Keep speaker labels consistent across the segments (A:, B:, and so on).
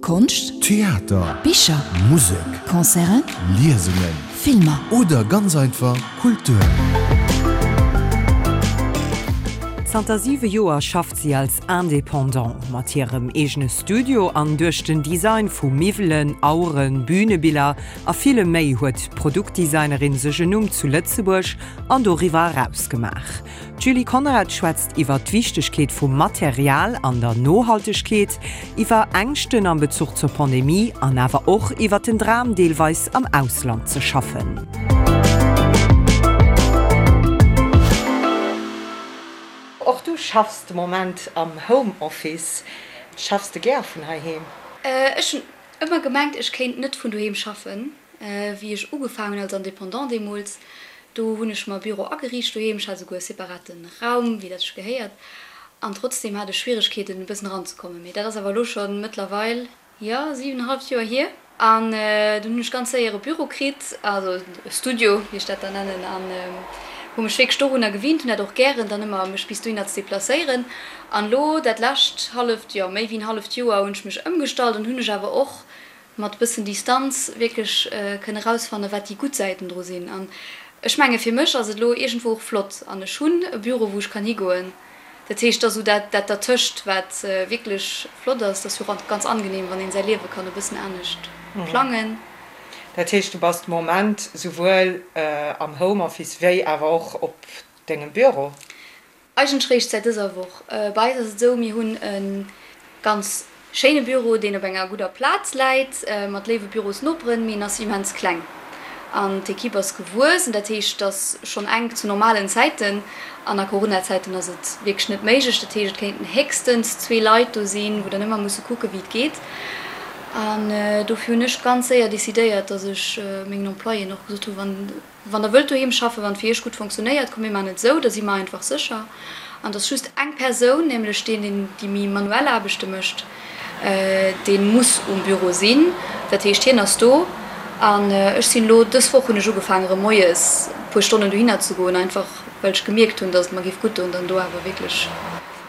A: Konscht,
B: Theater,
A: Bicher,
B: Musek,
A: Concerten,
B: Liesungen,
A: Filmer.
B: Oder ganz einfach Kultur.
C: Zanter siwe Joer schafft si als Indépendant. Mat hirem eegene Studio an duerch den Design vu Miwwelen, Aueren, Bühnebiller a villem méi huet d'Produktdesignerin sech en Numm zu Lëtzebuerg an doriwwer eraus gemaach. D'Julie Conrad schwätzt iwwer d'Wichtegkeet vum Material an der Nohaltegkeet, iwwer Ängschten am Bezuch zur Pandemie an awer och iwwer den Dram deelweis am Ausland ze schaffen.
D: Och du schaffs de Moment am Home Office. Schaffs de gär vun heiheem?
E: Ech hunn ëmmer gemengt, ech kéint net vun doheem schaffen. Wéi ech ugefaangen hunn als Indépendant deemools, do hunn ech mer e Büro ageriicht doheem. Ech hat esouguer e separate Raum, wéi dat sech gehéiert. An trotzdeem hat ech Schwieregkeeten, e bëssen eranzekommen. Mee dat ass awer elo scho mëttlerweil, jo, siwenenhalleft Joer hier. An dunn hunn ech ganz séier e Büro kritt, also e Studio, wéi ech dat dann nennen, an hu mech wierklech dorunner gewinnt, hunn dat och gären, dann ëmmer mech bis dohinner ze deplacéieren. An elo dat lescht halleft, jo, méi wéi en halleft Joer hunn ech mech ëmgestallt an hunn ech awer och mat e bëssen Distanz wierklech kënne rausfanne wat déi gutt Säiten dru sinn. An ech menge fir mech ass et elo iergendwou och flott an ech hunn e Büro wou ech kann higoen. Dat heescht, et ass esou dat dat dertëscht wat wierklech flott ass. Et ass jo och ganz angenehm wann een säi Liewe kann e bëssen anescht plangen.
D: Dat heescht du bass de Moment souwuel am Homeoffice wéi awer och op dengem Büro?
E: Eigentlech réischt säit dëser Woch. Bei eis ass et esou, mir hunn e ganz schéine Büro, deen op enger gudder Plaz läit, mat léiwe Bürosnoperen, mee en ass immens kleng an d'Ekipp ass gewuess. An dat heescht, et ass schonn enk zu normalen Zäiten an a Corona-Zäiten ass et wierklech net méiglech. Dat heescht, et kéinten héchstens zwee Leit do sinn, wou dann ëmmer musse kucke wéi et geet. An dofir hunn ech ganz séier decidéiert, datt ech mengen Employéen och gesot hunn, wann Wann der wëllt doheem schaffen, wann et fir iech gutt fonctionnéiert, komm mir maachen et esou, da si mer einfach sécher. An et ass just eng Persoun, nämlech deen, deen déi méi manuell Aarbechte mécht, dee muss um Büro sinn. Dat heescht, hien ass do. An ech sinn elo, dës Woch hunn ech ugefaangen, erëm moies e puer Stonnen dohinner ze goen, einfach well ech gemierkt hunn, datt et mer géif gutt doen, dann do awer wierklech,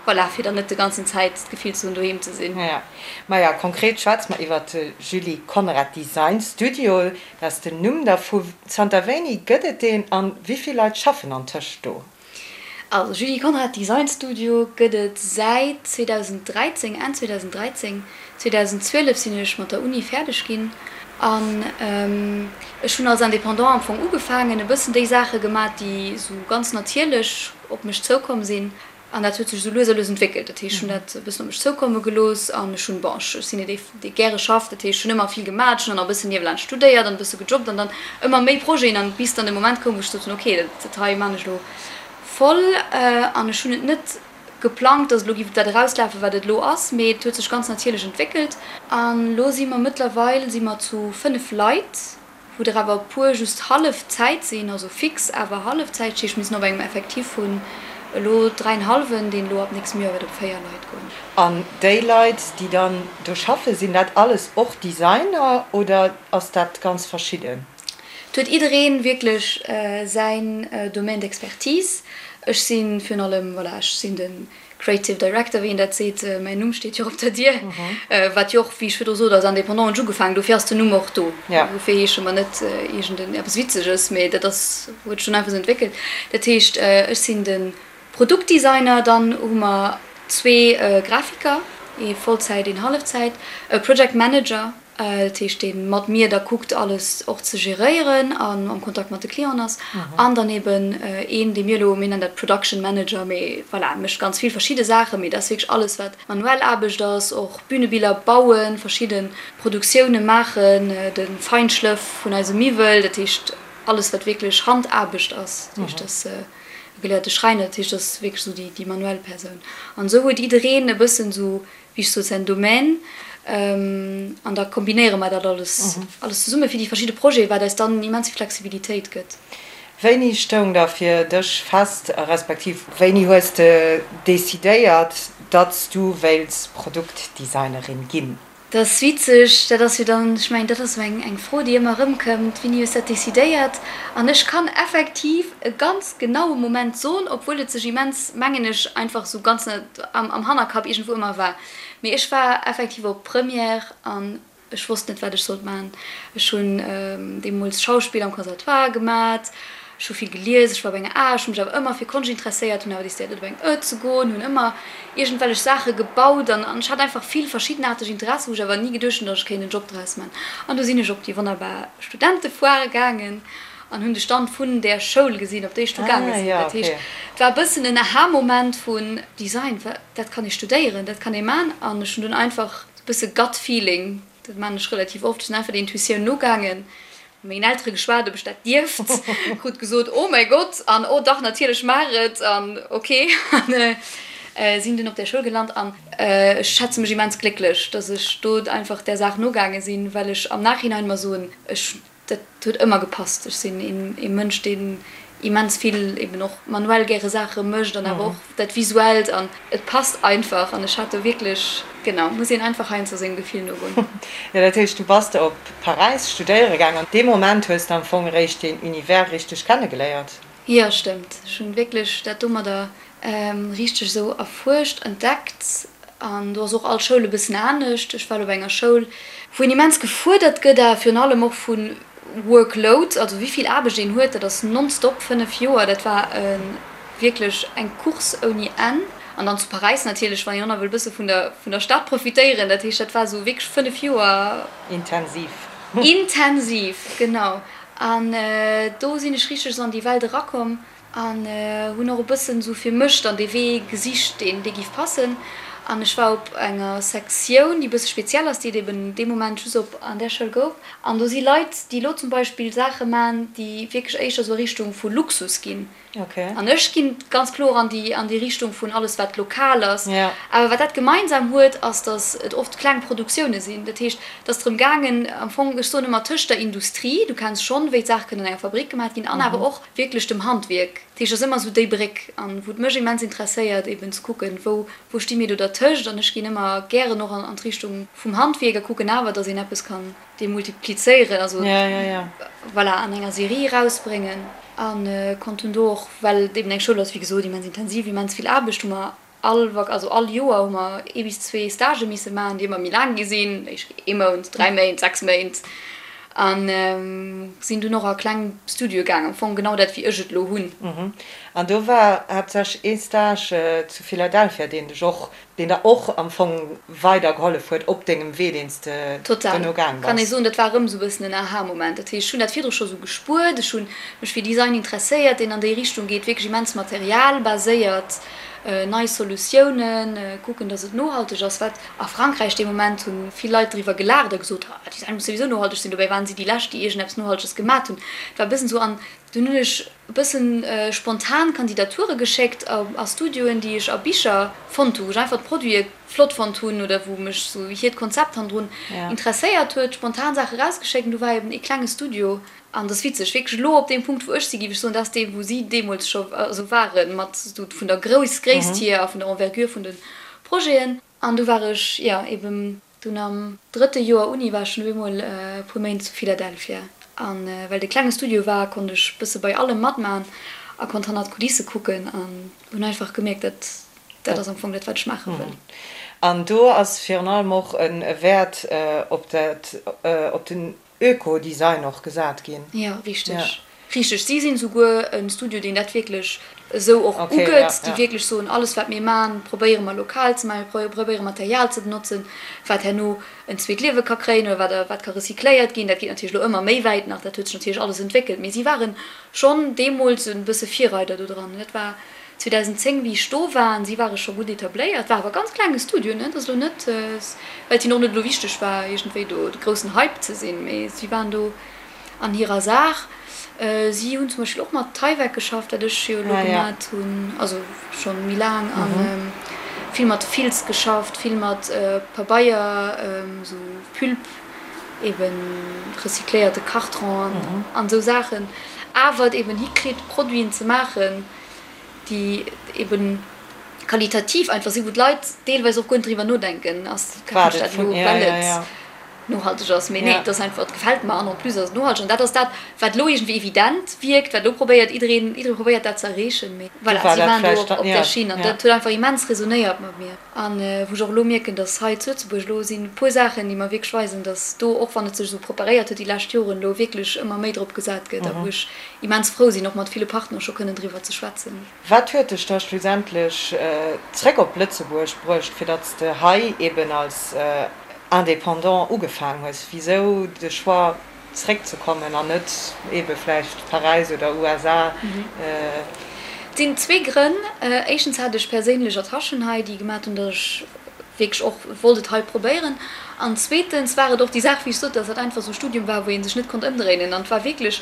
E: voilà, fir dann net de ganzen Zäit d'Gefill ze hunn, doheem ze sinn.
D: Maja, konkret schwätze mer iwwert de Julie Conrad Design Studio. Dat ass den Numm dervu. Zanter wéini gëtt et deen an wéi vill Leit schaffen antëscht do?
E: Also Julie Conrad Design Studio gëtt et säit 2013, Enn 2013. 2012 sinn ech mat der Uni fäerdeg ginn an ech hunn als Indépendant am Fong ugefaangen, e bëssen déi Saache gemat, déi esou ganz natierlech op mech zoukomm sinn. An dat huet sech esou lues a lues entwéckelt. Dat heescht, ech hunn dat e bëssen op mech zoukomme gelooss an ech hunn, bon, ech sinn net ee, dee gäre schafft, dat heescht, ech hunn ëmmer vill gemaach, ech hunn dann nach e bëssen niewelaanscht studéiert an e bësse gejobbt an dann ëmmer méi Projeten an bis dann de Moment koum, wou ech gesot hunn, okay, dat dat hei maan ech elo voll. An ech hunn et net geplangt, datt et elo géif op dat erauslafen, wat et elo ass, mee et huet sech ganz natierlech entwéckelt. An elo si mer mëttlerweil si mer zu 5 Leit. wou der awer e puer just hallef Zäit sinn, also fix awer hallef Zäit, dat heescht mir sinn op engem Effectif vun elo dräienhallwen, deen elo ab nächstem Joer wäert op 4 Leit goen.
D: An déi Leit, déi dann do schaffen, sinn dat alles och Designer oder ass dat ganz verschidden?
E: Et huet jidderee wierklech säin Domaine d'expertise. Ech si virun allem, voilà, ech sinn de Creative Director, wéi een dat seet, mäin Numm steet jo och op der Dier, wat jo och, wéi ech virdru sot, als Indépendant hunn ech ugefaangen, dofir ass den Numm och do. Dofir heesche mer net iergend en eppes Witzeges, mee dat ass, huet sech dunn einfach esou entwéckelt. Dat heescht, ech sinn de Produktdesigner, dann hu mer zwee Grafiker, ee Vollzäit, een Hallefzäit, e Project Manager, Dat heescht, dee mat mir da kuckt, alles och ze geréieren an am Kontakt mat de Clienten ass. An dann eben een, dee mir elo, mir nennen dat Production Manager, mee voilà, mécht ganz vill verschidde Saachen, mee dat ass wierklech alles, wat manuell Aarbecht ass, och Bünebiller bauen, verschidde Produktioune maachen, de Feinschlëff vun eise Miwwel, dat heescht alles, wat wierklech Handaarbecht ass. Dat heescht, dat ass e geléierte Schräiner, dat heescht, dat ass wierklech esou déi manuell Persoun. An esou huet jiddereen e bëssen esou wéi ech sot, säin Domaine, an da kombinéiere mer dat alles, alles zesumme fir déi verschidde Projeten, wat eis dann immens vill Flexibilitéit gëtt.
D: Wéini stoung da fir dech fest, respektiv wéini hues de decidéiert, datt s du wéilts Produktdesignerin ginn?
E: Dat ass witzeg, dat ass jo dann, ech mengen, dat ass esou eng Fro, déi ëmmer erëmkëmmt, Wéini hues dat decidéiert? An ech kann effektiv e ganz genaue Moment soen, obwuel et sech immens, mengen ech, einfach esou ganz am Hannerkapp iergendwou ëmmer war. Mee ech war effektiv op Première an ech wosst net, wat ech sollt maachen. Ech hunn deemools Schauspill am Conservatoire gemat, Ech hu vill gelies, ech war op enger A, ech hu mech awer ëmmer fir Konscht interesséiert, hunn awer decidéiert net op eng Ë ze goen, hunn ëmmer iergendwellech Saache gebaut an ech hat einfach vill verschiddenaarteg Interessen, wou ech awer ni geduecht hunn, datt ech kéint en Job draus man. An du sinn ech op déi wonnerbar Studentefoire gaangen an hunn de Stand vun där Schoul gesinn, op déi ech du gaange sinn. Dat heescht, et war e bëssen en Aha-Moment vun, Design, dat kann ee studéieren, dat kann ee man. An ech hunn dunn einfach e bësse Gut Feeling, dat man ech relativ oft, ech sinn einfach der Intuitioun nogaangen Mat mengen Eltere geschwat, ob ech dat dierft. Krut gesot, oh mäi Gott, an oh dach, natierlech, maach et, an ok. An sinn dunn op där Schoul gelant an ech schätze mech immens glécklech, dass ech do einfach där Saach nogaange sinn, well ech am Nachhinein mer soen, ech, dat huet ëmmer gepasst. Ech sinn ee Mënsch, deen immens vill eben och manuell gäre Saache mécht an awer och dat Visuellt an et passt einfach an ech hat do wierklech, genau, muss een einfach heiansdo sengem Gefill nogoen.
D: Jo, dat heescht du bass op Paräis studéiere gaang an dee Moment hues de am Fong eréischt deen Univers richteg kennegeléiert?
E: Jo, stëmmt. Ech hunn wierklech dat domadder richteg esou erfuerscht, entdeckt an do ass och all Schoul e bëssen anescht. Ech war lo bei enger Schoul, wou een immens gefuerdert gëtt a virun allem och vu Workload, also wéi vill Aarbecht een huet, dat ass nonstop, 5 Joer, dat war wierklech eng Course ouni Enn. An dann zu Paräis natierlech, wann een och nach wëll e bësse vun der vun der Stad profitéieren, dat heescht, dat war esou wierklech 5 Joer.
D: Intensiv.
E: Intensiv, genau. An do sinn ech richteg esou an déi Welt erakomm. An hunn och e bëssen esou fir mech dann dee Wee gesicht, deen dee giff passen. An ech war op enger Sektioun, déi e bësse speziell ass, déi et eben dee Moment just op an där Schoul gouf. An do si Leit, déi elo zum Beispill Saache man, déi wierklech éischter esou a Richtung vu Luxus ginn. An ech ginn ganz kloer an déi an déi Richtung vun alles wat lokal ass. Awer wat dat gemeinsam huet, ass, datt et oft kleng Produktioune sinn. Dat heescht, et ass drëm gaangen am Fong, ech soen ëmmer, tëscht der Industrie, du kenns schonn, wéi d'Saache kënnen an enger Fabrick gemaat ginn, an awer och wierklech dem Handwierk. Dat heescht, et ass ëmmer esou déi Bréck, an wou et mech immens interesséiert eben ze kucken, wou wou sti mir do dertëscht. An ech ginn ëmmer gären och an d'Richtung vum Handwierk a kucken awer, datt een eppes kann demultiplizéieren, also voilà, an enger Serie erausbréngen. A konnt dunn do och, well et eben eng Schoul ass, wéi gesot, immens intensiv, immens vill Aarbecht, hu mer All Vak-, also all Joer hu mer ee bis zwee Stagë misse maachen, déi ëmmer méi laang gi sinn, ee Mount, 3 Méint, 6 Méint, a sinn dunn och a kleng Studioe gaang, am Fong genau dat wéi ech et elo hunn.
D: An do war haaptsächlech ee Stage zu Philadelphia, deen dech och, deen der och am Fong weider gehollef huet op dengem Wee, deen s de
E: Total,
D: duerno gaang
E: kann ee
D: bass.
E: soen, dat war erëm esou e bëssen en Aha-Moment. Dat heescht, ech hunn dat virdru scho sou gespuert, ech hu mech fir Design interesséiert, deen an déi Richtung geet, wierklech immens materialbaséiert, nei Solutiounen, kucken, datt et nohalteg ass, wat a Frankräich dee Moment hu vill Leit driwwer gelaacht a gesot, ah, Design muss souwisou nohalteg sinn. Dobäi waren si déi lescht, déi iergendeppes Nohalteges gemat hunn. Et war e bëssen esou an dunn hunn ech e bëssen spontan Kandidature geschéckt a Studioen, déi ech a Bicher fonnt hu, wou ech einfach d'Produite flott fonnt hunn oder wou mech esou hiert Konzept hannendrun interesséiert huet, spontan Saache rausgeschéckt an du war eben ee klenge Studio An dat ass witzeg, wierklech elo op deem Punkt, wou ech si, géif ech soen, dat ass dee, wou si deemools scho also waren, mat esou vun der Grouss, Gréisst hier a vun der Envergure vun de Projeten. An du war ech, jo, eben dunn am drëtte Joer Uni war ech dunn op eemol e puer Méint zu Philadelphia. A well et e klenge Studio war, konnt ech bësse bei allem matman a konnt hannert d'Kulisse kucken an hunn einfach gemierkt, dat, dat ass am Fong dat, wat ech maache wëll.
D: An do ass virun allem och e Wäert op dat, op den Öko-Design och gesat ginn.
E: Jo, richteg. Richteg. Si sinn souguer e Studio, deen dat wierklech esou och ugëtt, déi wierklech soen, alles wat mir man, probéiere mer lokal ze man, mir probéiere Material ze benotzen, wat herno en zweet Liewe ka kréien oder wat wat ka recycléiert ginn. Dat geet natierlech elo ëmmer méi wäit nach, dat huet sech natierlech alles entwéckelt, mee si ware schonn deemools e bësse Virreider do dran. Dat war 2010 wéi ech do war an si ware scho gutt etabléiert, war awer ganz klenge Studio, ne, et ass elo net, well et hinnen och net elo wichteg war iergendwéi do de groussen Hype ze sinn, mee si waren do an hirer Saach. Si hunn zum Beispill och mat Tyvek geschafft, wat ech jo elo gemat hunn, also schonn méi laang, a vill mat Filz geschafft, vill mat Pabeier, esou Pulp, eben recycléierte Karton an esou Saachen, awer et eben hikritt Produiten ze maachen, déi eben. qualitativ einfach sinn, wou d'Leit deelweis och guer net driwwer nodenken, ass kafen ech dat elo, well et nohalteg ass. Mee nee, et ass einfach, et gefält mer an en plus ass et nohalteg. An dat ass dat, wat elo iergendwéi evident wierkt, wat elo probéiert, jiddereen, jidderee probéiert dat ze erreechen. Mee voilà, si waren do op där Schinn an dat huet einfach immens resonéiert mat mir. An wou ech och elo mierken, dass hei zu Lëtzebuerg elo sinn e puer Saachen, déi mer wierklech weisen, dass do, och wann et sech esou preparéiert huet déi lescht Joren, elo wierklech ëmmer méi drop gesat gëtt a wou ech immens frou sinn, och mat ville Partner scho kënnen driwwer ze schwätzen.
D: Wat huet dech da schlussendlech zréck op Lëtzebuerg bruecht, fir datt s de hei eben als Indépendant ugefaang hues? Wisou de Choix zréckzekommen an net ebe vläicht Paräis oder USA?
E: Et sinn zwee Grënn. Éischtens hat ech perséinlech Attachen hei, déi gemat hunn, datt ech wierklech och wollt et hei probéieren. An zweetens war et och déi Saach, wéi ech sot, datt dat einfach esou e Studium war, wou ee sech net konnt ëmdréinen. An et war wierklech,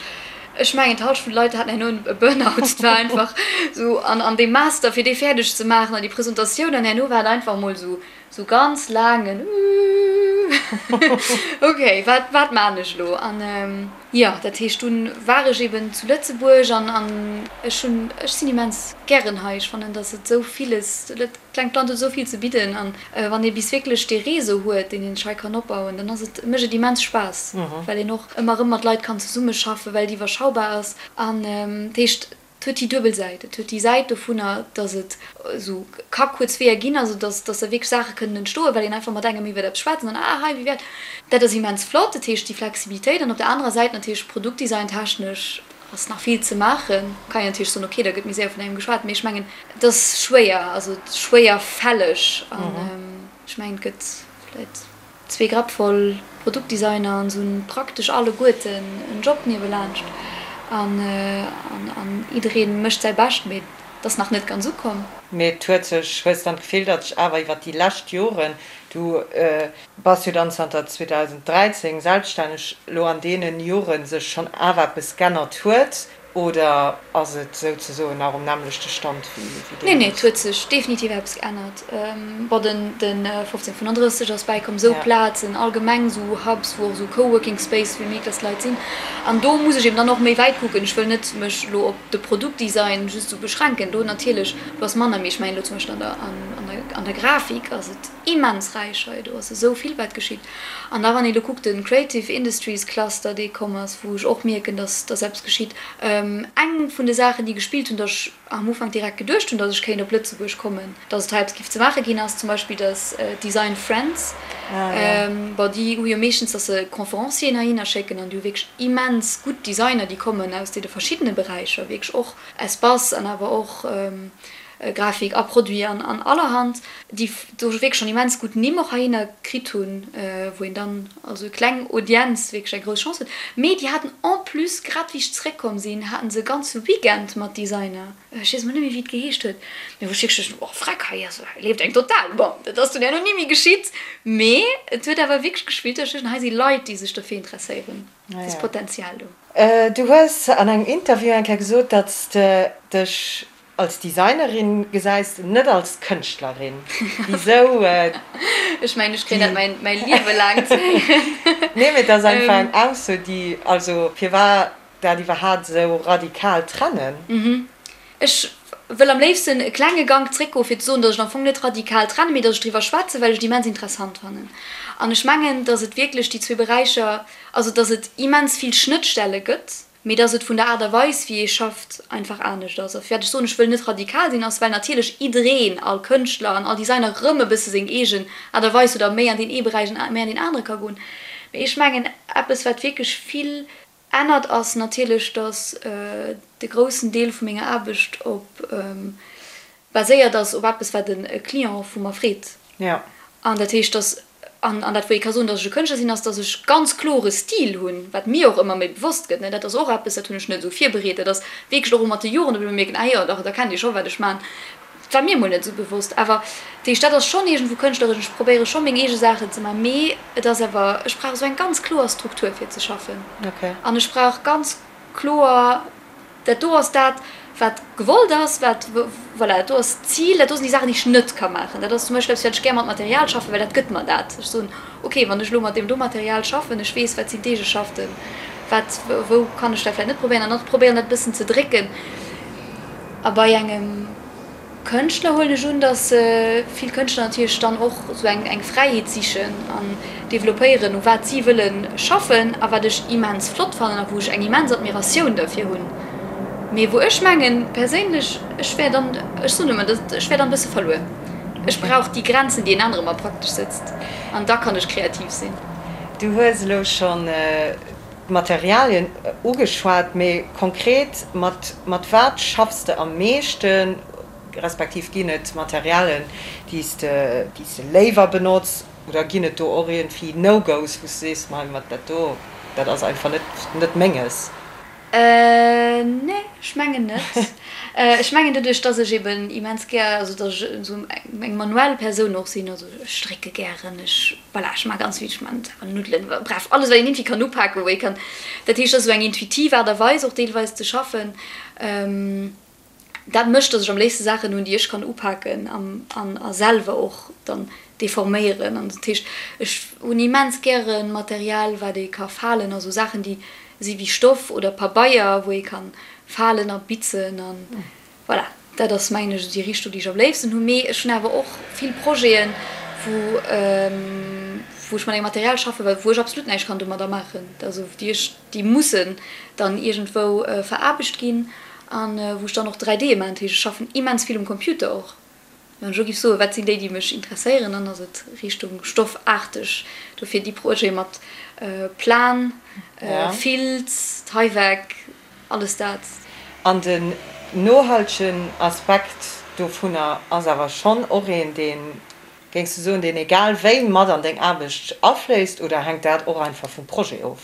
E: ech mengen, d'Halschent vun de Leit haten herno e Burnout. Et war einfach esou, an an dee Master, fir dee fäerdeg ze maachen an déi Presentatioun, an herno war et einfach emol esou, esou ganz laangen Ok, wat, wat maan ech elo? An jo, dat heescht, dunn war ech eben zu Lëtzebuerg an an ech hunn, ech sinn immens gären hei. Ech fannen, datt et esou villes, dat klengt Land huet esou vill ze bidden an wann ee bis wierklech dee Réseau huet, deen een sech hei kann opbauen, dann ass et, mécht et immens Spaass, well een och ëmmer erëm mat Leit kann zesummeschaffen, well et iwwerschaubar ass. An dat heescht, Et huet déi duebel Säit. Et huet déi Säit dovunner, datt et esou ka kuerz Weeër ginn, also datt datt da wierklech Saache kënnen entstoen, well een einfach mat engem iwwert eppes schwätzt an dann, ah hei, wéi wär dat ass immens flott. Dat heescht déi Flexibilitéit. An op der anerer Säit natierlech produktdesigntechnesch ass nach vill ze maachen. Kann een natierlech soen, okay, da gëtt méi séier vun engem geschwat, mee ech mengen, et ass schwéier, also schwéierfälleg an ech mengen, et gëtt vläicht. Zwee Grapp voll Produktdesigner an se hunn praktesch alleguerten en Job niewelaanscht an an jiddereen mécht säi Bescht, mee et ass nach net ganz ukomm.
D: Mee et huet sech, hues dann d'Gefill, datt sech awer iwwer déi lescht Joren, du bass jo dann zanter 2013 selbststänneg, elo an deenen Joren sech schonn awer eppes g'ännert huet? Oder ass et souzesoen nach um nämmlechte Stand wéi
E: deemools? Nee, nee, et huet sech definitiv eppes geännert. Bon, den 1535 ass bäikomm, esou Plazen, allgemeng esou Hubs, wou och esou Coworking Space, wéi méi dass Leit sinn. An do muss ech eben dann och méi wäit kucken. Ech wëll net mech elo op de Produktdesign just esou beschränken. Do natierlech, do ass manner, mee ech mengen elo zum Beispill an der, an der Grafik ass et immens räich hei. Do ass esou vill wat geschitt. An da wann ee lo kuckt, de Creative Industries Cluster, dee komm ass, wou ech och mierken, dass dass eppes geschitt. Eng vun de Saachen, déi gespillt hunn, dass ech am Ufank direkt geduecht hunn, dass ech kéint op Lëtzebuerg kommen, dass et hei eppes giff ze maache ginn, ass zum Beispill, dass Design Friends, bon, déi hu jo meeschtens, dass se Conférencieren heihinner schécken an déi hu wierklech immens gutt Designer, déi kommen aus deene verschiddene Beräicher, wierklech och Espace an awer och Grafik a Produit an an allerhand, déi do wierklech schonn immens gutt Nimm och heihinner kritt hunn, wou een dann also e kleng Audienz wierklech eng grouss Chance huet. Mee déi haten en plus, grad wéi ech zeréckkomm sinn, haten se e ganze Weekend mat Designer, ech weess emol net méi wéi et geheescht huet, mee wou ech wierklech duecht, oh freck, hei ass, hei leeft eng total. Bon, dat ass dunn herno ni méi geschitt, mee et huet awer wierklech gespillt, datt ech duecht, hei si Leit, déi sech dofir interesséieren, et ass Potenzial do.
D: Du hues an engem Interview eng Kéier gesot, datt s de dech Als Designerin gesäis de net als Kënschtlerin. Wisou
E: déi? Ech mengen, ech kréien dat mäi Liewe laang ze héieren.
D: Nee, mee et ass einfach eng Ausso, déi, also firwat dat iwwerhaapt esou radikal trennen?
E: Ech wëll am léifsten e klenge Gank zréckgoen, fir ze soen, datt ech am Fong net radikal trennen, mee datt ech driwwer schwätzen, well ech et immens interessant fannen. An ech mengen, datt et wierklech déi zwee Beräicher, also datt et immens vill Schnëttstelle gëtt, mee dass et vun der Aart a Weis, wéi ee schafft, einfach anescht ass. A firwat ech soen, ech wëll net radikal sinn, ass, well natierlech jiddereen, all Kënschtler an all Designer erëm e bësse seng eegen Aart a Weis huet a méi an deen ee Beräich an méi an deen anere ka goen. Mee ech mengen, eppes, wat wierklech vill ännert, ass natierlech, dass de groussen Deel vu menger Aarbecht op baséiert ass op eppes, wat e Client vu mer freet. An dat heescht, dass, an dat wou ee ka soen, dass ech e Kënschtler sinn, ass, dass ech ganz klore Stil hunn, wat mir och ëmmer méi bewosst gëtt. Dat ass och eppes, dat hunn ech net esou virbereet. Dat ass wierklech och mat de Joren, datt ech elo mierken, ah jo, dach, da kennt Dir scho wat ech maachen. Dat war mir emol net esou bewosst. Awer dat heescht, dat ass schonn iergendwou kënschtleresch. Ech probéiere scho meng eege Saachen ze maachen, mee et ass awer, ech brauch esou eng ganz kloer Struktur fir ze schaffen. An ech brauch ganz kloer Dat do ass dat, wat gewollt ass, wat, voilà, dat do ass d'Zil, dat do sinn déi Saachen, déi ech net ka maachen. Dat ass zum Beispill eppes, wat ech gär mat Material schaffen, well dat gëtt mer dat. Ech soen, okay, wann ech elo mat deem do Material schaffen, ech weess, wat sinn d'Eegeschaften, wat, wou kann ech dat vläicht net probéieren an dann probéieren, dat e bëssen ze drécken. A bei engem. Kënschtler huelen ech un, datt vill Kënschtler natierlech dann och esou eng eng Fräiheet sichen an developpéieren, u wat si wëlle schaffen a wat ech immens flott fannen a wou ech eng immens Admiratioun derfir hunn, mee wou ech mengen perséinlech, ech wär dann, ech soen ëmmer, ech wär dann e bësse verluer. Ech brauch déi Grenzen, déi een anere mer praktesch sëtzt an da kann ech kreativ sinn.
D: Du hues elo schonn d'Materialien ugeschwat, mee konkret, mat mat wat schaffs de am meeschten, respektiv ginn et Materialien, déi s de déi s de léiwer benotz, oder ginn et do och iergendwéi No-Gos, wou s de sees, mei mat dat do, dat ass einfach net net menges?
E: Nee, ech mengen net. Ech mengen doduerch, dass ech eben immens gär, also dass ech esou eng manuell Persoun och sinn, also ech strécke gären, ech, voilà, ech maache ganz vill, ech maachen selwer Nuddelen, bref, alles wat een iergendwéi kann upaken, wou ee kann, dat heescht, dat ass esou eng intuitiv Aart a Weis och deelweis ze schaffen. Dat mécht, dass ech am léifste Saachen hunn, déi ech kann upaken an a selwer och dann deforméieren. An dat heescht, ech hunn immens gäre Material, wat ee ka falen, also Saachen, déi si wéi Stoff oder Pabeier, wou ee ka falen a bitzen an voilà. Dat ass, mengen ech, esou déi Richtung, déi ech am léifsten hunn. Mee ech hunn awer och vill Projeten, wou wou ech mat engem Material schaffen, wou ech absolut näischt kann domadder maachen, also déi ech déi mussen dann iergendwou veraarbecht ginn an wou ech dann och 3D maachen. Dat heescht, ech schaffen immens vill um Computer och. Wann ech elo géif soen, wat sinn déi, déi mech interesséieren, dann ass et Richtung stoffaarteg. Dofir déi Projete mat Plan, Filz, Tyvek, alles dat.
D: An den nohaltegen Aspekt dovunner ass awer schonn och een, deen, géings du soen, deen egal wéi mat an deng Aarbecht afléisst oder hänkt dat och einfach vum Projet of?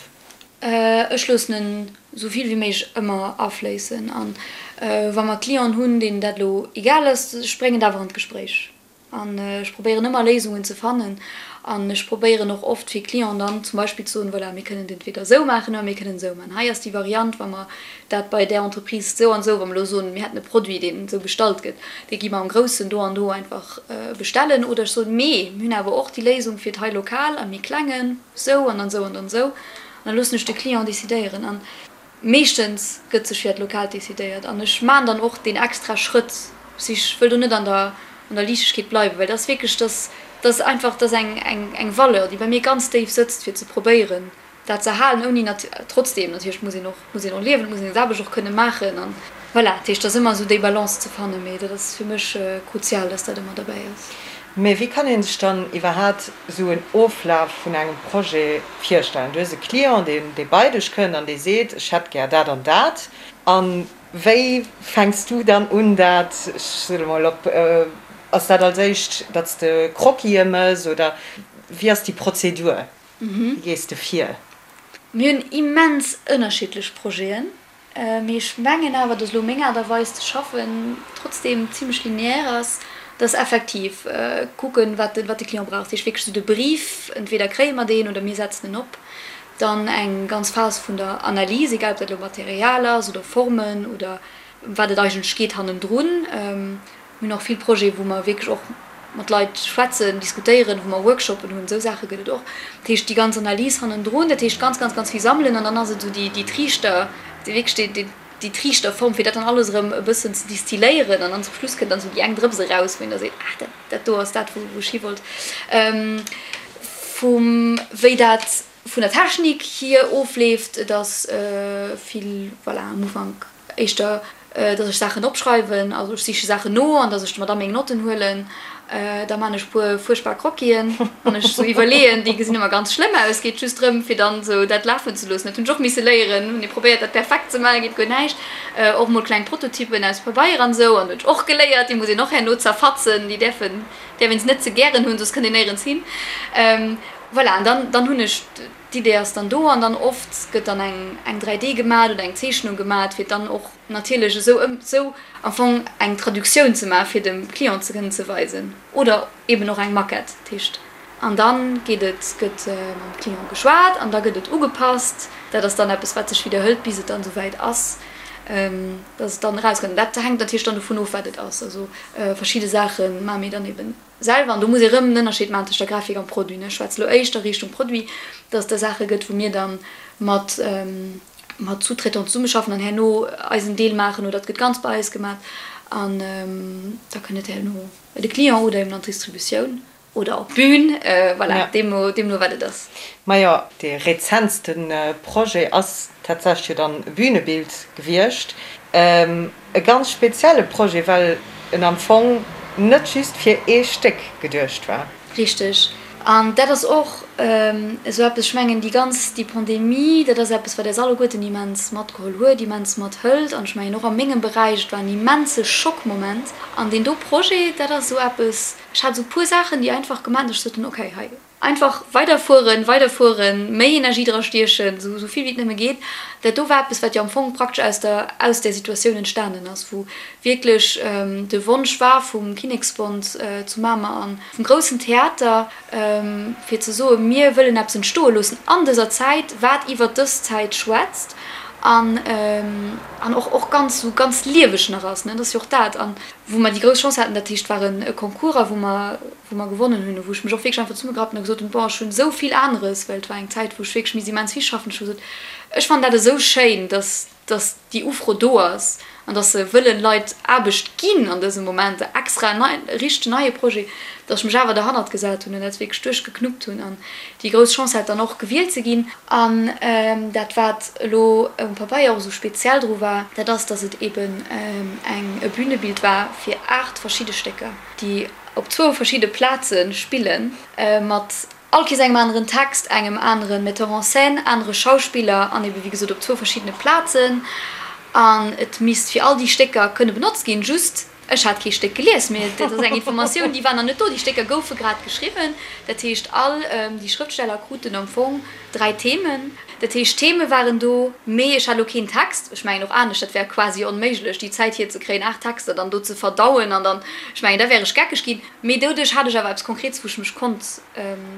E: Ech loossen en esou vill wéi méiglech ëmmer afléissen an wa mer Clienten hunn, deenen dat elo egal ass, ech bréngen et awer an d'Gespréich an ech probéieren ëmmer Léisungen ze fannen an ech probéieren och oft fir Clienten dann zum Beispill ze soen, voilà, mir kënnen et entweder esou maachen oder mir kënnen et esou maachen. Hei ass déi Variant, wa mer dat bei där Entreprise esou an esou, wa mer elo soen, mir hätten e Produit, deen esou bestallt gëtt, dee gi mer am Groussen do an do einfach bestellen oder ech soen, mee mir hunn awer och déi Léisung fir et hei lokal am méi Klengen. Sou an dann sou an dann sou. An da loossen ech de Client decidéieren. An meeschtens gëtt sech fir dat Lokaalt decidéiert. An ech maan dann och deen extra Schrëtt. Si ech wëll do net an der an der Liichtegkeet bleiwen, well dat ass wierklech, dat dat ass einfach, dat ass eng eng eng Valeur, déi bei mir ganz déif sëtzt, fir ze probéieren dat ze erhalen, ouni nat trotzdem natierlech muss een och muss een och liewen, et muss een seng Aarbecht och kënne maachen an voilà. Dat heescht, et ass ëmmer esou déi Balance ze fannen, mee dat ass fir mech kruzial, dass dat ëmmer derbäi ass.
D: Mee wéi kann ee sech dann iwwerhaat esou en Oflaf vun engem Projet virstellen? Du hues e Client, deen dee bei dech kënnt an dee seet, ech hätt gär dat an dat. A wéi fänks du dann un dat, ech soe lo mol op, ass dat als éischt, datt s de Croquisë mëss oder wéi ass déi Prozedur? Wéi gees de vir?
E: Mir hunn immens ënnerschiddlech Projeten. Mee ech mengen awer, dass elo meng Aart a Weis ze schaffen trotzdem zimlech lineaire ass, dass effektiv kucken, wat de, wat de Client brauch. Dat heescht wierklech esou de Brief, entweder kréie mer deen oder mir setzen en op. Dann eng ganz Phas vun der Analys, egal ob dat elo Material ass oder Formen oder ëm wat et eigentlech geet hannendrun. Mir hunn och vill Projete wou mer wierklech och mat Leit schwätzen, diskutéieren, wou mer Workshoppen hunn, esou Saache gëtt et och. Dat heescht déi ganz Analys hannendrun, dat heescht ganz, ganz, ganz vill sammelen an dann ass et esou déi, déi Triichter, déi wierklech déi, déi, déi Triichterform, fir dat dann alles erëm e bëssen ze distilléieren an dann zum Schluss kënnt dann esou déi eng Drëps eraus, wou een da seet, ah dat, dat do ass dat, wou, wou ech hi wollt. Vum wéi dat vun der Technik hier ofleeft, et ass vill, voilà, am Ufank Éischter, dass ech Saachen opschreiwen, also ech siche Saachen no an dass ech mer da meng Notten huelen. Da man ech puer fuerchtbar Croquisen an ech sou iwwerleeën, déi gesinn ëmmer ganz schlëmm aus, geet just drëm fir dann sou dat lafen ze loossen. Dat hunn ech och misse léieren, hunn ee probéiert dat perfekt ze maachen, geet guer näischt. Och mol kleng Prototypen aus Pabeier an sou an hunn ech och geléiert, déi muss een och herno zerfatzen, déi däerfen, däerf een se net ze gären hunn, soss kënnt een néierens hin. Voilà, an dann, dann hunn ech. D'Idee ass dann do an dann oft gëtt dann eng eng 3D gemat oder eng Zeechnung gemat, fir dann och natierlech esou ëm esou am Fong eng Traductioun ze maachen, fir dem Client ze kënnen ze weisen oder eben och eng Maquette. Dat heescht, an da geet et, gëtt mam Client geschwat an da gëtt et ugepasst. Dat ass dann eppes, wat sech widderhëlt, bis et dann esouwäit ass, dass et dann erauskënnt. Dat hänkt natierlech dann dovun of, wat et ass. Also verschidde Saache maache mir dann eben. Selwer, an do muss ee rëm en Ënnerscheed maachen tëscht der Grafik am Produit, ne, ech schwätze lo éischter Richtung Produit, dass et da Saache gëtt, wou mir da mat mat Sous-traitants zesummeschaffen an herno eisen Deel maachen oder et gëtt ganz bei eis gemaach. An da kënnt et herno bei de Client oder eben an d'Distributioun oder op d'Bün, voilà, deemno, deemno wat et ass.
D: Majo, dee rezentste Projet ass tatsächlech jo dann e Bünebild gewiescht. E ganz spezielle Projet, well en am Fong net just fir ee Stéck geduecht war.
E: Richteg. An dat ass och esou eppes, ech mengen, déi ganz, déi Pandemie, dat ass eppes, wat eis alleguerten immens matgeholl huet, immens mathëlt. An ech mengen och a mengem Beräich, et war en immense Schockmoment. An deen do Projet, dat ass esou eppes, ech hat esou e puer Saachen, déi einfach gemaach hunn, datt ech sot hunn, okay, hei, Einfach weiderfueren, weiderfueren, méi Energie dra stiechen, esou vill wéi et nëmme geet. Dat do war eppes, wat jo am Fong praktesch aus der, aus där Situatioun entstanen ass, wou wierklech de Wonsch war vum Kinneksbond zu Mamer an vum groussen Theater, fir ze soen, mir wëllen eppes entstoe loossen an dëser Zäit, wat iwwert dës Zäit schwätzt an, an och, och ganz, esou ganz lieweg nach ass, ne. Dat ass jo och dat. An wou mer déi grouss Chance haten, dat heescht, et war e Concours a wou mer, wou mer gewonnen hunn, wou ech mech och wierklech einfach zesummegerappt hunn a gesot hunn, bon, ech hunn esou vill aneres, well et war eng Zäit, wou ech wierklech misst immens vill schaffen, ech hu gesot, ech fannen dat esou schéin, dass, dass déi Ufro do ass an dass se wëllen Leit Aarbecht ginn an dësem Moment, extra en nei, e richtegen neie Projet, dass ech mech awer derhannert gesat hunn an dat wierklech duerchgeknuppt hunn an déi grouss Chance hat, dann och gewielt ze ginn. An dat, wat elo um Pabeier och esou speziell dru war, dat ass, dass et eeben eng, e Bünebild war fir 8 verschidde Stécker, déi op zwou verschidde Plaze spillen, mat all Kees engem aneren Text, engem anere Metteur en scène, anere Schauspiller an ebe wéi gesot op zwou verschiddene Plazen. An et misst fir all déi Stécker kënne benotzt ginn. Just, ech hat kee Stéck gelies, mee dat ass eng Informatioun, déi war nach net do. Déi Stécker goufe grad geschriwwen. Dat heescht, all déi Schrëftsteller kruten am Fong dräi Themen. Dat heescht, d'Theme waren do, mee ech hat elo keen Text. Ech mengen och anescht, dat wär quasi onméiglech, déi Zäit hierzekréien, 8 Texter dann do ze verdauen an dann, ech mengen, da wär ech geckeg ginn. Mee doduerch hat ech awer eppes Konkretes, wou ech mech konnt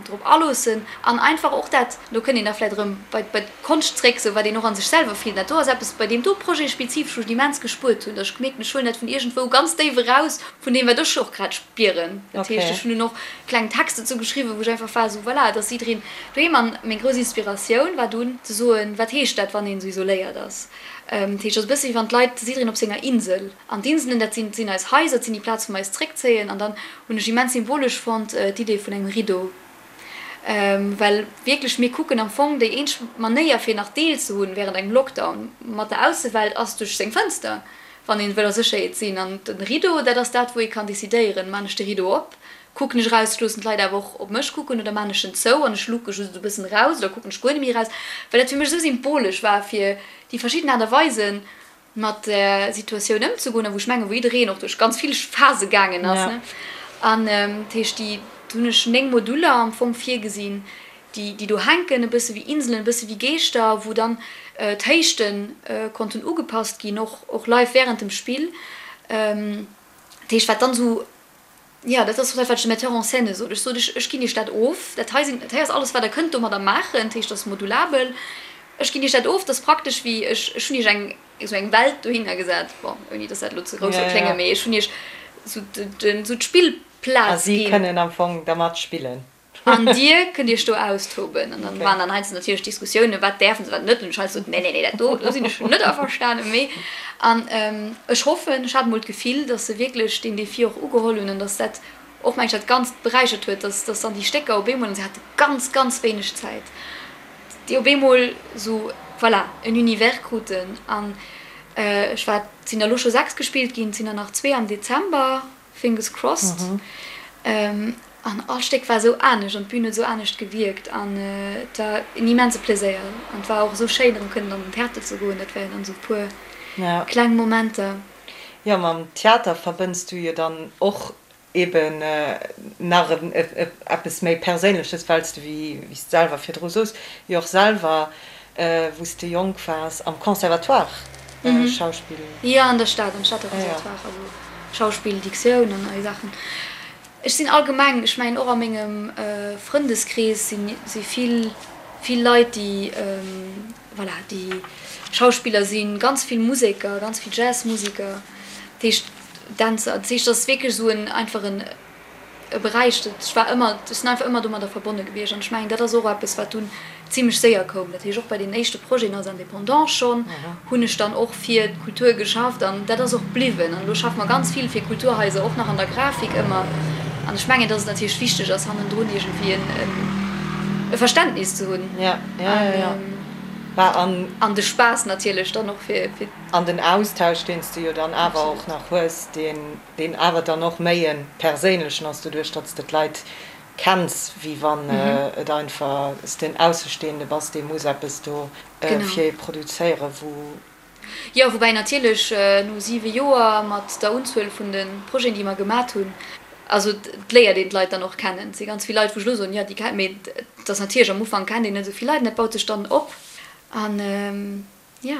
E: drop aloossen an einfach och dat, do kënnt een da vläicht erëm bei d'Konscht zréck, sou wat een och a sech selwer fillt. Dat do ass eppes, bei deem do Projet spezifesch, wou ech et immens gespuert hunn, datt ech gemierkt hunn, ech huelen dat vun iergendwou ganz déif eraus, vun deem, wat ech och grad spieren. Dat heescht, ech hunn dunn och kleng Texter dozou geschriwwen, wou ech einfach war esou, voilà, et ass jiddereen doheem. An meng grouss Inspiratioun war dunn ze soen, wat heescht dat, wann een esou isoléiert ass? Dat heescht, et ass e bësse wéi wann d'Leit, jiddereen op senger Insel. An d'Inselen, dat sinn, sinn eis Haiser, dat sinn déi Plaz, wou mer eis zréckzéien. An dann hunn ech immens symbolesch fonnt d'Idee vun engem Rideau. Well wierklech, mir kucken am Fong, déi eenzeg Manéier fir nach Deel ze hunn während engem Lockdown mat der Aussewelt ass duerch seng Fënster, wann een wëll a Sécherheet sinn. An den Rideau, dat ass dat wou ee kann decidéieren, maan ech de Rideau op, kucken ech eraus, loossen d'Leit awer och op mech kucken oder maan ech en zou an ech luke just esou e bëssen eraus oder kucken ech guer net méi eraus, well dat fir mech esou symbolesch war fir déi verschidden Aart a Weisen mat der Situatioun ëmzegoen a wou ech mengen, wou jiddereen och duerch ganz vill Phase gaangen ass. An dat heescht, déi, do hunn ech 9 Moduler am Fong virgesinn, déi, déi do hänken, e bësse wéi Inselen, e bësse wéi Geeschter, wou dann d'Héichte konnten ugepasst ginn, och, och live während dem Spill. Dat heescht, wat dann esou Jo, dat ass och dat, wat ech dem Metteur en scène sot. Ech sot, ech, ech ginn Iech dat of. Dat hei sinn, dat hei ass alles, wat Der kënnt domadder maachen. Dat heescht, dat ass modulabel. Ech ginn Iech dat of. Dat ass praktesch wéi, ech, ech hunn Iech eng, esou eng Welt dohinner gesat. Bon, ouni dass dat elo ze grouss soll kléngen, mee ech hunn Iech esou den, esou d'Spillplaz
D: A si
E: ginn.
D: kënnen am Fong dermat spillen.
E: An Dir kënnt Iech do austoben. An dann waren dann heiansdo natierlech Diskussiounen, wat däerfen se, wat net. An ech heiansdo sot, nee, nee, nee, dat do, do sinn ech net averstanen. Mee, an ech hoffen, ech hat emol d'Gefill, datt se wierklech deen Defi och ugeholl hunn an datt dat och, meng ech, dat Ganzt beräichert huet, datt, datt dann déi Stécker op eemol, an se hate ganz, ganz wéineg Zäit, déi op eemol esou, voilà, en Univers kruten. An ech war, et sinn der elo scho 6 gespillt ginn, et sinn der nach zwee am Dezember. Fingers crossed. An all Stéck war esou anescht an d'Bün huet esou anescht gewierkt an et war en immense Pleséier an et war och esou schéin erëm kënnen an den Theater ze goen. Dat waren dann esou e puer kleng Momenter.
D: Jo, mam Theater verbënns du jo dann och eben nach eppes méi Perséinleches, well s de, wéi s de selwer virdru soos, jo och selwer Wou s de jonk waars, am Conservatoire Schauspill?
E: Jo, an der Stad, am Stater Conservatoire, also Schauspill, Diktioun an all déi Saachen. Ech sinn allgemeng, ech mengen och a mengem Frëndeskrees si vill, vill Leit, déi, voilà, déi Schauspiller sinn, ganz vill Museker, ganz vill Jazzmuseker, dat heescht Dänzer. Dat heescht, dat ass wierklech esou en einfach en. e Beräich, dat ech war ëmmer, ech sinn einfach ëmmer domadder verbonne gewiescht an ech mengen, dat ass och eppes, wat dunn zimlech séier koum. Dat heescht, och bei deenen éischte Projeten als Indépendant schonn hunn ech dann och fir d'Kultur geschafft an dat ass och bliwwen. An elo schaffe mer ganz vill fir Kulturhaiser, och nach an der Grafik ëmmer. An ech mengen, dass et natierlech wichteg ass, hannendrun iergendwéi e Verständnis ze hunn an de Spaass natierlech dann och fir.
D: An den Austausch, deen s de jo dann awer och nach hues, deen awer dann och méi e perséinlechen ass, doduerch datt s de d'Leit kenns, wéi wann et einfach s de en Aussestehende bass, dee muss eppes do fir ee produzéieren, wou.
E: Jo, woubäi natierlech no siwe Joer mat der Unzuel vun de Projeten, déi mer gemat hunn, also et léiert een d'Leit dann och kennen. Et si ganz vill Leit, wou ech elo soen, jo, déi kennen, mee et ass natierlech, am Ufank kennt een net esou vill Leit an dat baut sech dann op an jo.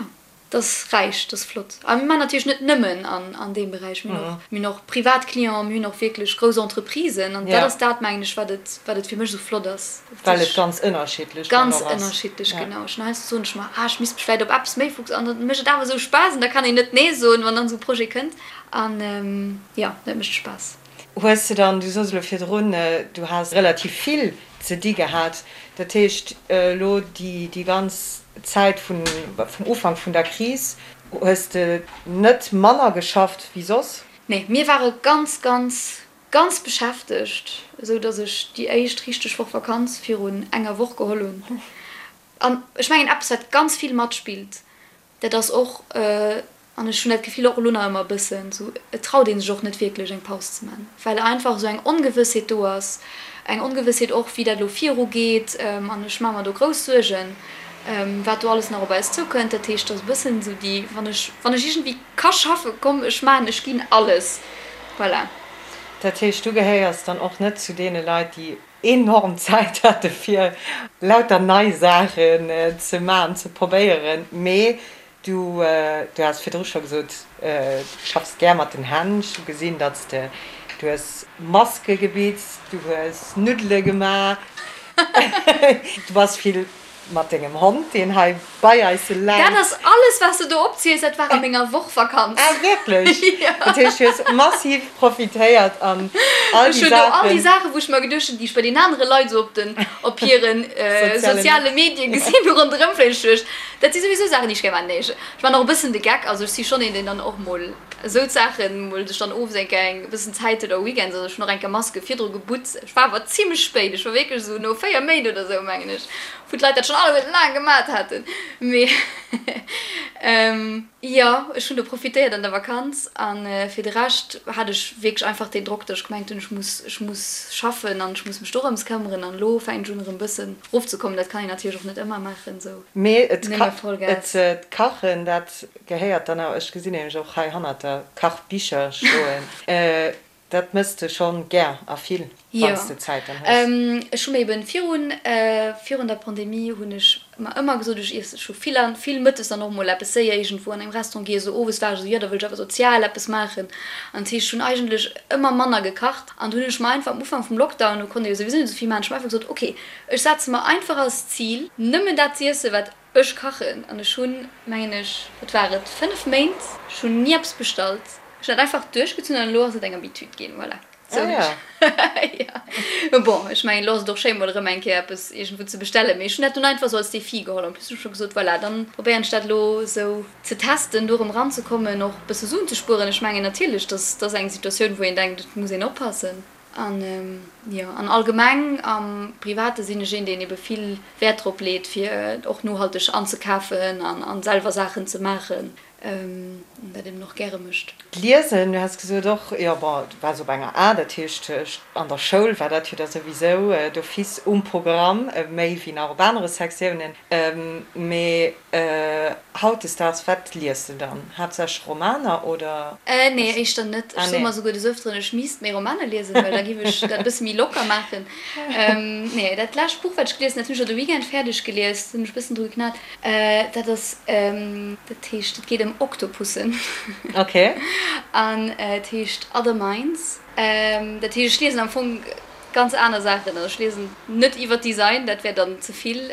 E: Dat ass räich, dat ass flott. A mir maachen natierlech net nëmmen an deem Beräich. Mir hunn och, mir hunn och privat Clienten, mir hunn och wierklech grouss Entreprisen. An dat ass dat, mengen ech, wat et, wat et fir mech esou flott ass.
D: Well et ganz ënnerschiddlech
E: dann och ass. Ganz ënnerschiddlech, genau. Ech hunn heiansdo soen ech mer, ah, ech misst mech vläicht op eppes méi fokus. An dann mécht et awer esou Spaass an da kann een net nee soen, wann dann esou e Projet kënnt. An jo, dat mécht Spaass.
D: Hues de dann, du soss elo virdrun, du has relativ vill ze di gehat, dat heescht elo déi ganz Zäit vum Ufank vun der Kris hues de net manner geschafft wéi soss?
E: Nee, mir ware ganz, ganz, ganz beschäftegt, esou datt ech déi éischt richteg Woch Vakanz virun enger Woch geholl hunn. An ech mengen eppes wat ganz vill matspillt, Dat ass och, an ech hunn dat Gefill och elo nach ëmmer e bëssen, esou, et traut ee sech och net wierklech eng Paus ze man, well einfach esou eng Ongewëssheet do ass, eng Ongewëssheet och wéi dat elo virugeet an ech maache mer do grouss Suergen, wat do alles nach op eis zoukënnt. Dat heescht, et ass e bëssen esou déi, wann ech, wann ech iergendwéi ka schaffen, komm ech maachen, ech ginn alles, voilà.
D: Dat heescht, du gehéiers dann och net zu deene Leit, déi enorm Zäit hate fir lauter nei Saachen ze maachen, ze probéieren, mee du du has virdru scho gesot, du schaffs gär mat den Hänn. Ech hu gesinn, datt s de, du hues Maske gebitzt, du hues Nuddele gemaach, du bass vill Mat dengem Hond, deen hei bei eis läit.
E: Dat ass alles, wat s de do opziels, dat war a menger Woch Vakanz.
D: Ah, wierklech? Jo. Dat heescht, du hues massiv profitéiert an all déi Saachen.
E: Ech hunn do all déi Saachen, wou ech mer geduecht hunn, déi ech bei den anere Leit esou op den, op hiren soziale Medie gesinn hu ronderëm fléien. Ech duecht, dat si souwisou Saachen, déi ech gär maachen. Nee, ech maachen och e bëssen de Geck. Also ech si schonn een, deen dann och mol esou d'Saachen mol sech dann owes eng Kéier eng bëssen Zäit huet oder weekends. Also ech hunn och eng Kéier Maske virdru gebutzt. Ech war awer zimlech spéit, ech war wierklech esou no 4 Méint oder esou, mengen ech, wou d'Leit dat schonn alleguerten laang gemat haten. Mee jo, ech hunn do profitéiert an der Vakanz. A fir de Rescht hat ech wierklech einfach deen Drock, datt ech gemengt hunn, ech muss, ech muss schaffen an ech muss mech dorëms këmmeren. An elo fänken ech un erëm e bëssen erofzekommen. Dat kann een natierlech och net ëmmer maachen, esou
D: Mee et kachen, dat gehéiert dann awer, ech gesinn nämlech och hei hannert der Kachbicher stoen, Dat mëss de schonn gär a vill, wann s de Zäit dann
E: hues. Jo, ech hu mir eben virun, virun der Pandemie hunn ech mer ëmmer gesot, ech iesse scho vill an vill mëttes dann och mol eppes séier iergendwou an engem Restaurant giess. Esou owes war ech esou, jo da wëll ech awer sozial eppes maachen. An dat heescht, ech hunn eigentlech ëmmer manner gekacht an du hunn ech mer einfach am Ufank vum Lockdown, do konnt ee jo souwisou net esou vill maachen, ech hu mer einfach gesot, ok, ech setze mer einfach als Zil, nëmmen dat z'iessen, wat ech kachen. An ech hunn, mengen ech, wat war et, 5 Méint, ech hunn ni eppes bestallt. Ech hunn dat einfach duerchgezunn an elo ass et eng Habitude ginn, voilà. Sou hunn ech, jo. Mee bon, ech mengen, elo ass et och schéin, mol erëm eng Kéier eppes iergendwou ze bestellen. Mee ech hunn dat dunn einfach sou als Defi geholl. En plus hunn ech scho gesot, voilà, dann probéieren ech dat elo sou ze testen, do erëm eranzekommen, och e bësse Suen ze spueren. Ech mengen natierlech, dass dat ass eng Situatioun, wou een denkt, et muss een oppassen. An jo, an allgemeng am Private sinn ech een, deen ebe vill Wäert drop leet, fir och nohalteg anzekafen an selwer Saachen ze maachen. An dat eben och gäre mécht.
D: D'Liesen, du has gesot och, jo bon, du waars op enger A, dat heescht an der Schoul war dat jo da souwisou d'office um Programm, méi wéi nach op anere Sektiounen. Mee hautdesdaags, wat lies de dann? Haaptsächlech Romaner oder?
E: Nee, éischter net. Ech soe mer souguer des Ëfteren, ech misst méi Romaner liesen, well da giff ech dat e bësse méi locker maachen. Nee, dat lescht Buch, wat ech gelies hunn, dat hunn ech jo de Weekend fäerdeg gelies, hunn ech e bëssen dru geknat. Dat ass, dat heescht, et geet ëm Oktopussen.
D: Ok.
E: An et heescht Other Minds. Dat heescht, ech liesen am Fong. ganz aner Saachen. Also ech liesen net iwwer Design, dat wär dann ze vill.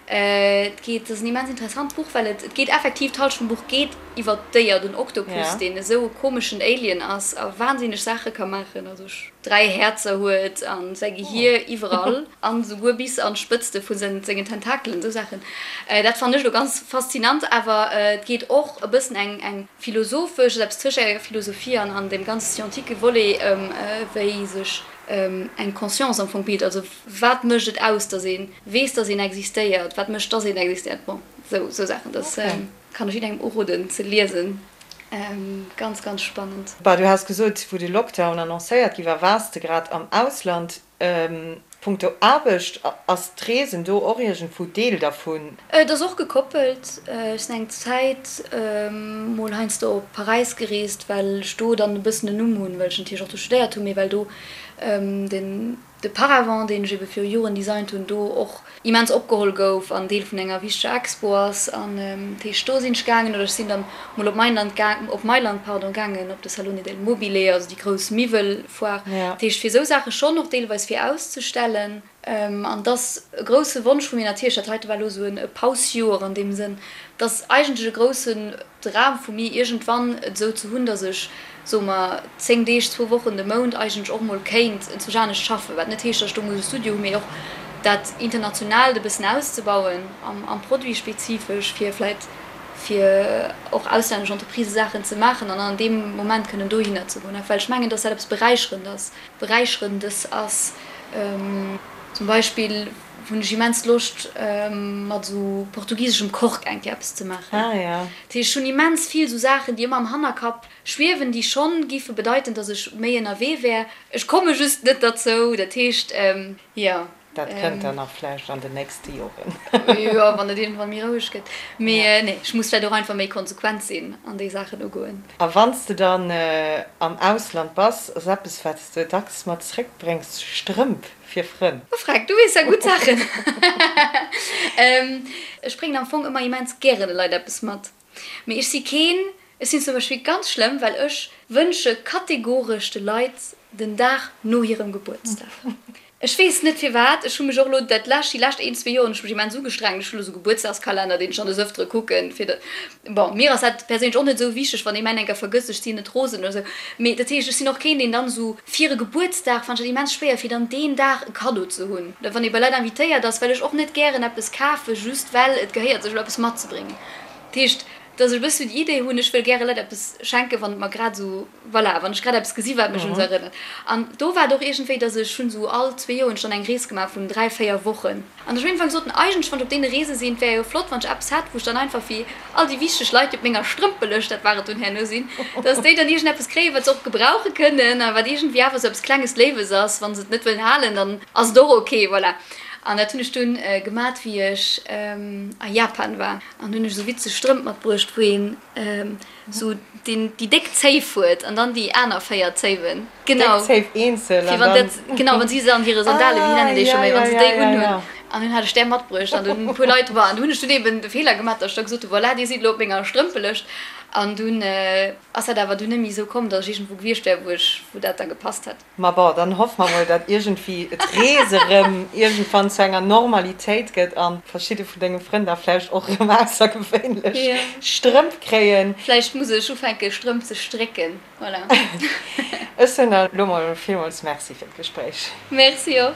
E: Et geet, et ass en immens interessant Buch, well et, et geet effektiv, d'Halschent vum Buch geet iwwer d'Déier, den Oktopus, deen esou e komeschen Alien ass a wahnsinneg Saache ka maachen, also 3 Häerzer huet a säi Gehier iwwerall an esouguer bis an d'Spëtzte vu sengen Tentakelen, esou Saachen. Dat fannen ech elo ganz faszinant, awer et geet och e bëssen eng, eng philosophesch, also eppes tëscht enger Philosophie an, an deem ganz scientique Volet ëm wéi sech eng Conscience am Fong bilt, also wat mécht et aus, datt ee weess, datt een existéiert, wat mécht, datt een existéiert, bon, esou Saachen. Dat kann ech jidderengem uroden ze liesen, ganz, ganz spannend.
D: Bah, du has gesot, wou de Lockdown annoncéiert gi war, waars de grad am Ausland. Punkto Aarbecht, ass d'Reesen do och iergendwou Deel dervun?
E: Et ass och gekoppelt. Ech sinn eng Zäit mol heiansdo op Paräis gereest, well ech do dann e bëssen en Numm hunn, well ech natierlech och do studéiert hunn, mee well do den de Paravent, deen ech ebe viru Joren designt hunn, do och immens opgeholl gouf an Deel vun enger wichteger Expo ass. An dat heescht, do sinn ech gaangen oder ech sinn dann mol op Mailand gaang, op Mailand, pardon, gaangen, op de Salone del Mobile, also déi grouss Miwwelfoire. Dat heescht, fir esou Saache schonn och deelweis fir auszestellen. An et ass e grousse Wonsch vu mir natierlech, dat heite war elo esou e Pausjoer an deem Sënn, et ass eigentlech e groussen Dram vu mir, iergendwann et esou ze hunn, datt ech, soe mer, 10 Deeg, zwou Wochen de Mount eigentlech och mol kéint enzwousch anescht schaffen. Wat net heescht, datt ech do muss e Studio hunn, mee och dat Internationaalt e bëssen auszebauen am Produit spezifesch, fir vläicht fir och auslännesch Entreprisë Saachen ze maachen an an deem Moment kënnen dohinner ze goen. Well ech mengen, datt dat eppes Beräicherend ass. Beräicherendes ass. Zum Beispill hunn ech immens Loscht mat esou portugiseschem Kork eng Kéier eppes ze maachen. Dat heescht, ech hunn immens vill esou Saachen, déi ëmmer am Hannerkapp schwiewen, déi schonn géife bedeiten, datt ech méi ënnerwee wär. Ech komme just net derzou. Dat heescht, jo.
D: Dat kënnt dann nach vläicht an den nächste Joren.
E: Jo, wann et iergendwann méi roueg gëtt. Mee nee, ech muss vläicht och einfach méi konsequent sinn an déi Saachen ugoen.
D: A wann s de dann am Ausland bass, ass eppes, wat s de dacks mat zréckbréngs, Strëmp fir Frënn?
E: Oh Freck, du weess ja gutt Saachen. Ech bréngen am Fong ëmmer immens gären de Leit eppes mat. Mee ech si keen, ech sinn zum Beispill ganz schlëmm, well ech wënsche kategoresch de Leit den Dag no hirem Gebuertsdag. Ech weess net firwat, ech hu mech och elo dat lescht, déi lescht een, zwee Joer hunn ech mech immens ugestrengt, ech hu elo esou Gebuertsdagskalenner, deen ech dann des Ëftere kucken, fir de, bon, mir ass dat perséinlech och net esou wichteg, wann ee mäin enker vergësst, ech sinn net rosen oder esou. Mee dat heescht, ech sinn och keen, deen dann esou fir e Gebuertsdag, fannen ech dat immens schwéier, fir dann deen Dag e Kaddo ze hunn, oder wann ee bei Leit invitéiert ass, well ech och net gären eppes kafe just well et gehéiert sech elo eppes matzebréngen. Dat heescht, dass ech e bëssen déi Idee hunn, ech wëll gäre Leit eppes schenken, wann et mer grad esou, voilà, wann ech grad eppes gesi wat mech un se erënnert. An do war et och iergendwéi, dass ech hunn esou all zwee Joer hunn ech dann eng Rees gemaach vun 3, 4 Wochen. An ech hunn iergendwann gesot, eigentlech, wann ech op deene Reese sinn, et wär jo flott, wann ech eppes hätt, wou ech dann einfach fir all déi wichteg Leit, déi op menger Strëmpelëscht, dat war et dunn herno, sinn, dass déi dann iergendeppes kréien, wat se och gebrauche kënnen a wat iergendwéi awer esou eppes Klenges Léiwes ass. Wa se et net wëllen halen, dann ass et och ok, voilà. An dat hunn ech dunn gemat, wéi ech a Japan war. An hunn ech esou witzeg Strëmp matbruecht, wou een esou deen, déi déck Zéif huet an dann déi aner 4 Zéiwen. Genau.
D: Déck Zéif eenzel
E: an dann. Genau, wann si se an hire Sandale, wéi nennen déi scho méi, wann se déi unhunn. An dunn hat ech där matbruecht an dunn e puer Leit war. An du hunn ech dunn eben de Feeler gemaach, datt ech da gesot hu, voilà, dir sidd elo op menger Strëmpelëscht. An dunn ass dat awer dunn net méi esou komm, datt ech iergendwou gewiescht wär, wou ech, wou dat da gepasst hätt.
D: Ma bon, dann hoffe mer mol, datt iergendwéi d'Rees erëm iergendwann zu enger Normalitéit gëtt a verschidde vun denge Frënn da vläicht och erëm aussergewéinlech Strëmp kréien.
E: Vläicht muss ech ufänke Strëmp ze strécken, voilà.
D: Ech soen der elo mol villmools Merci fir d'Gespréich.
E: Merci och.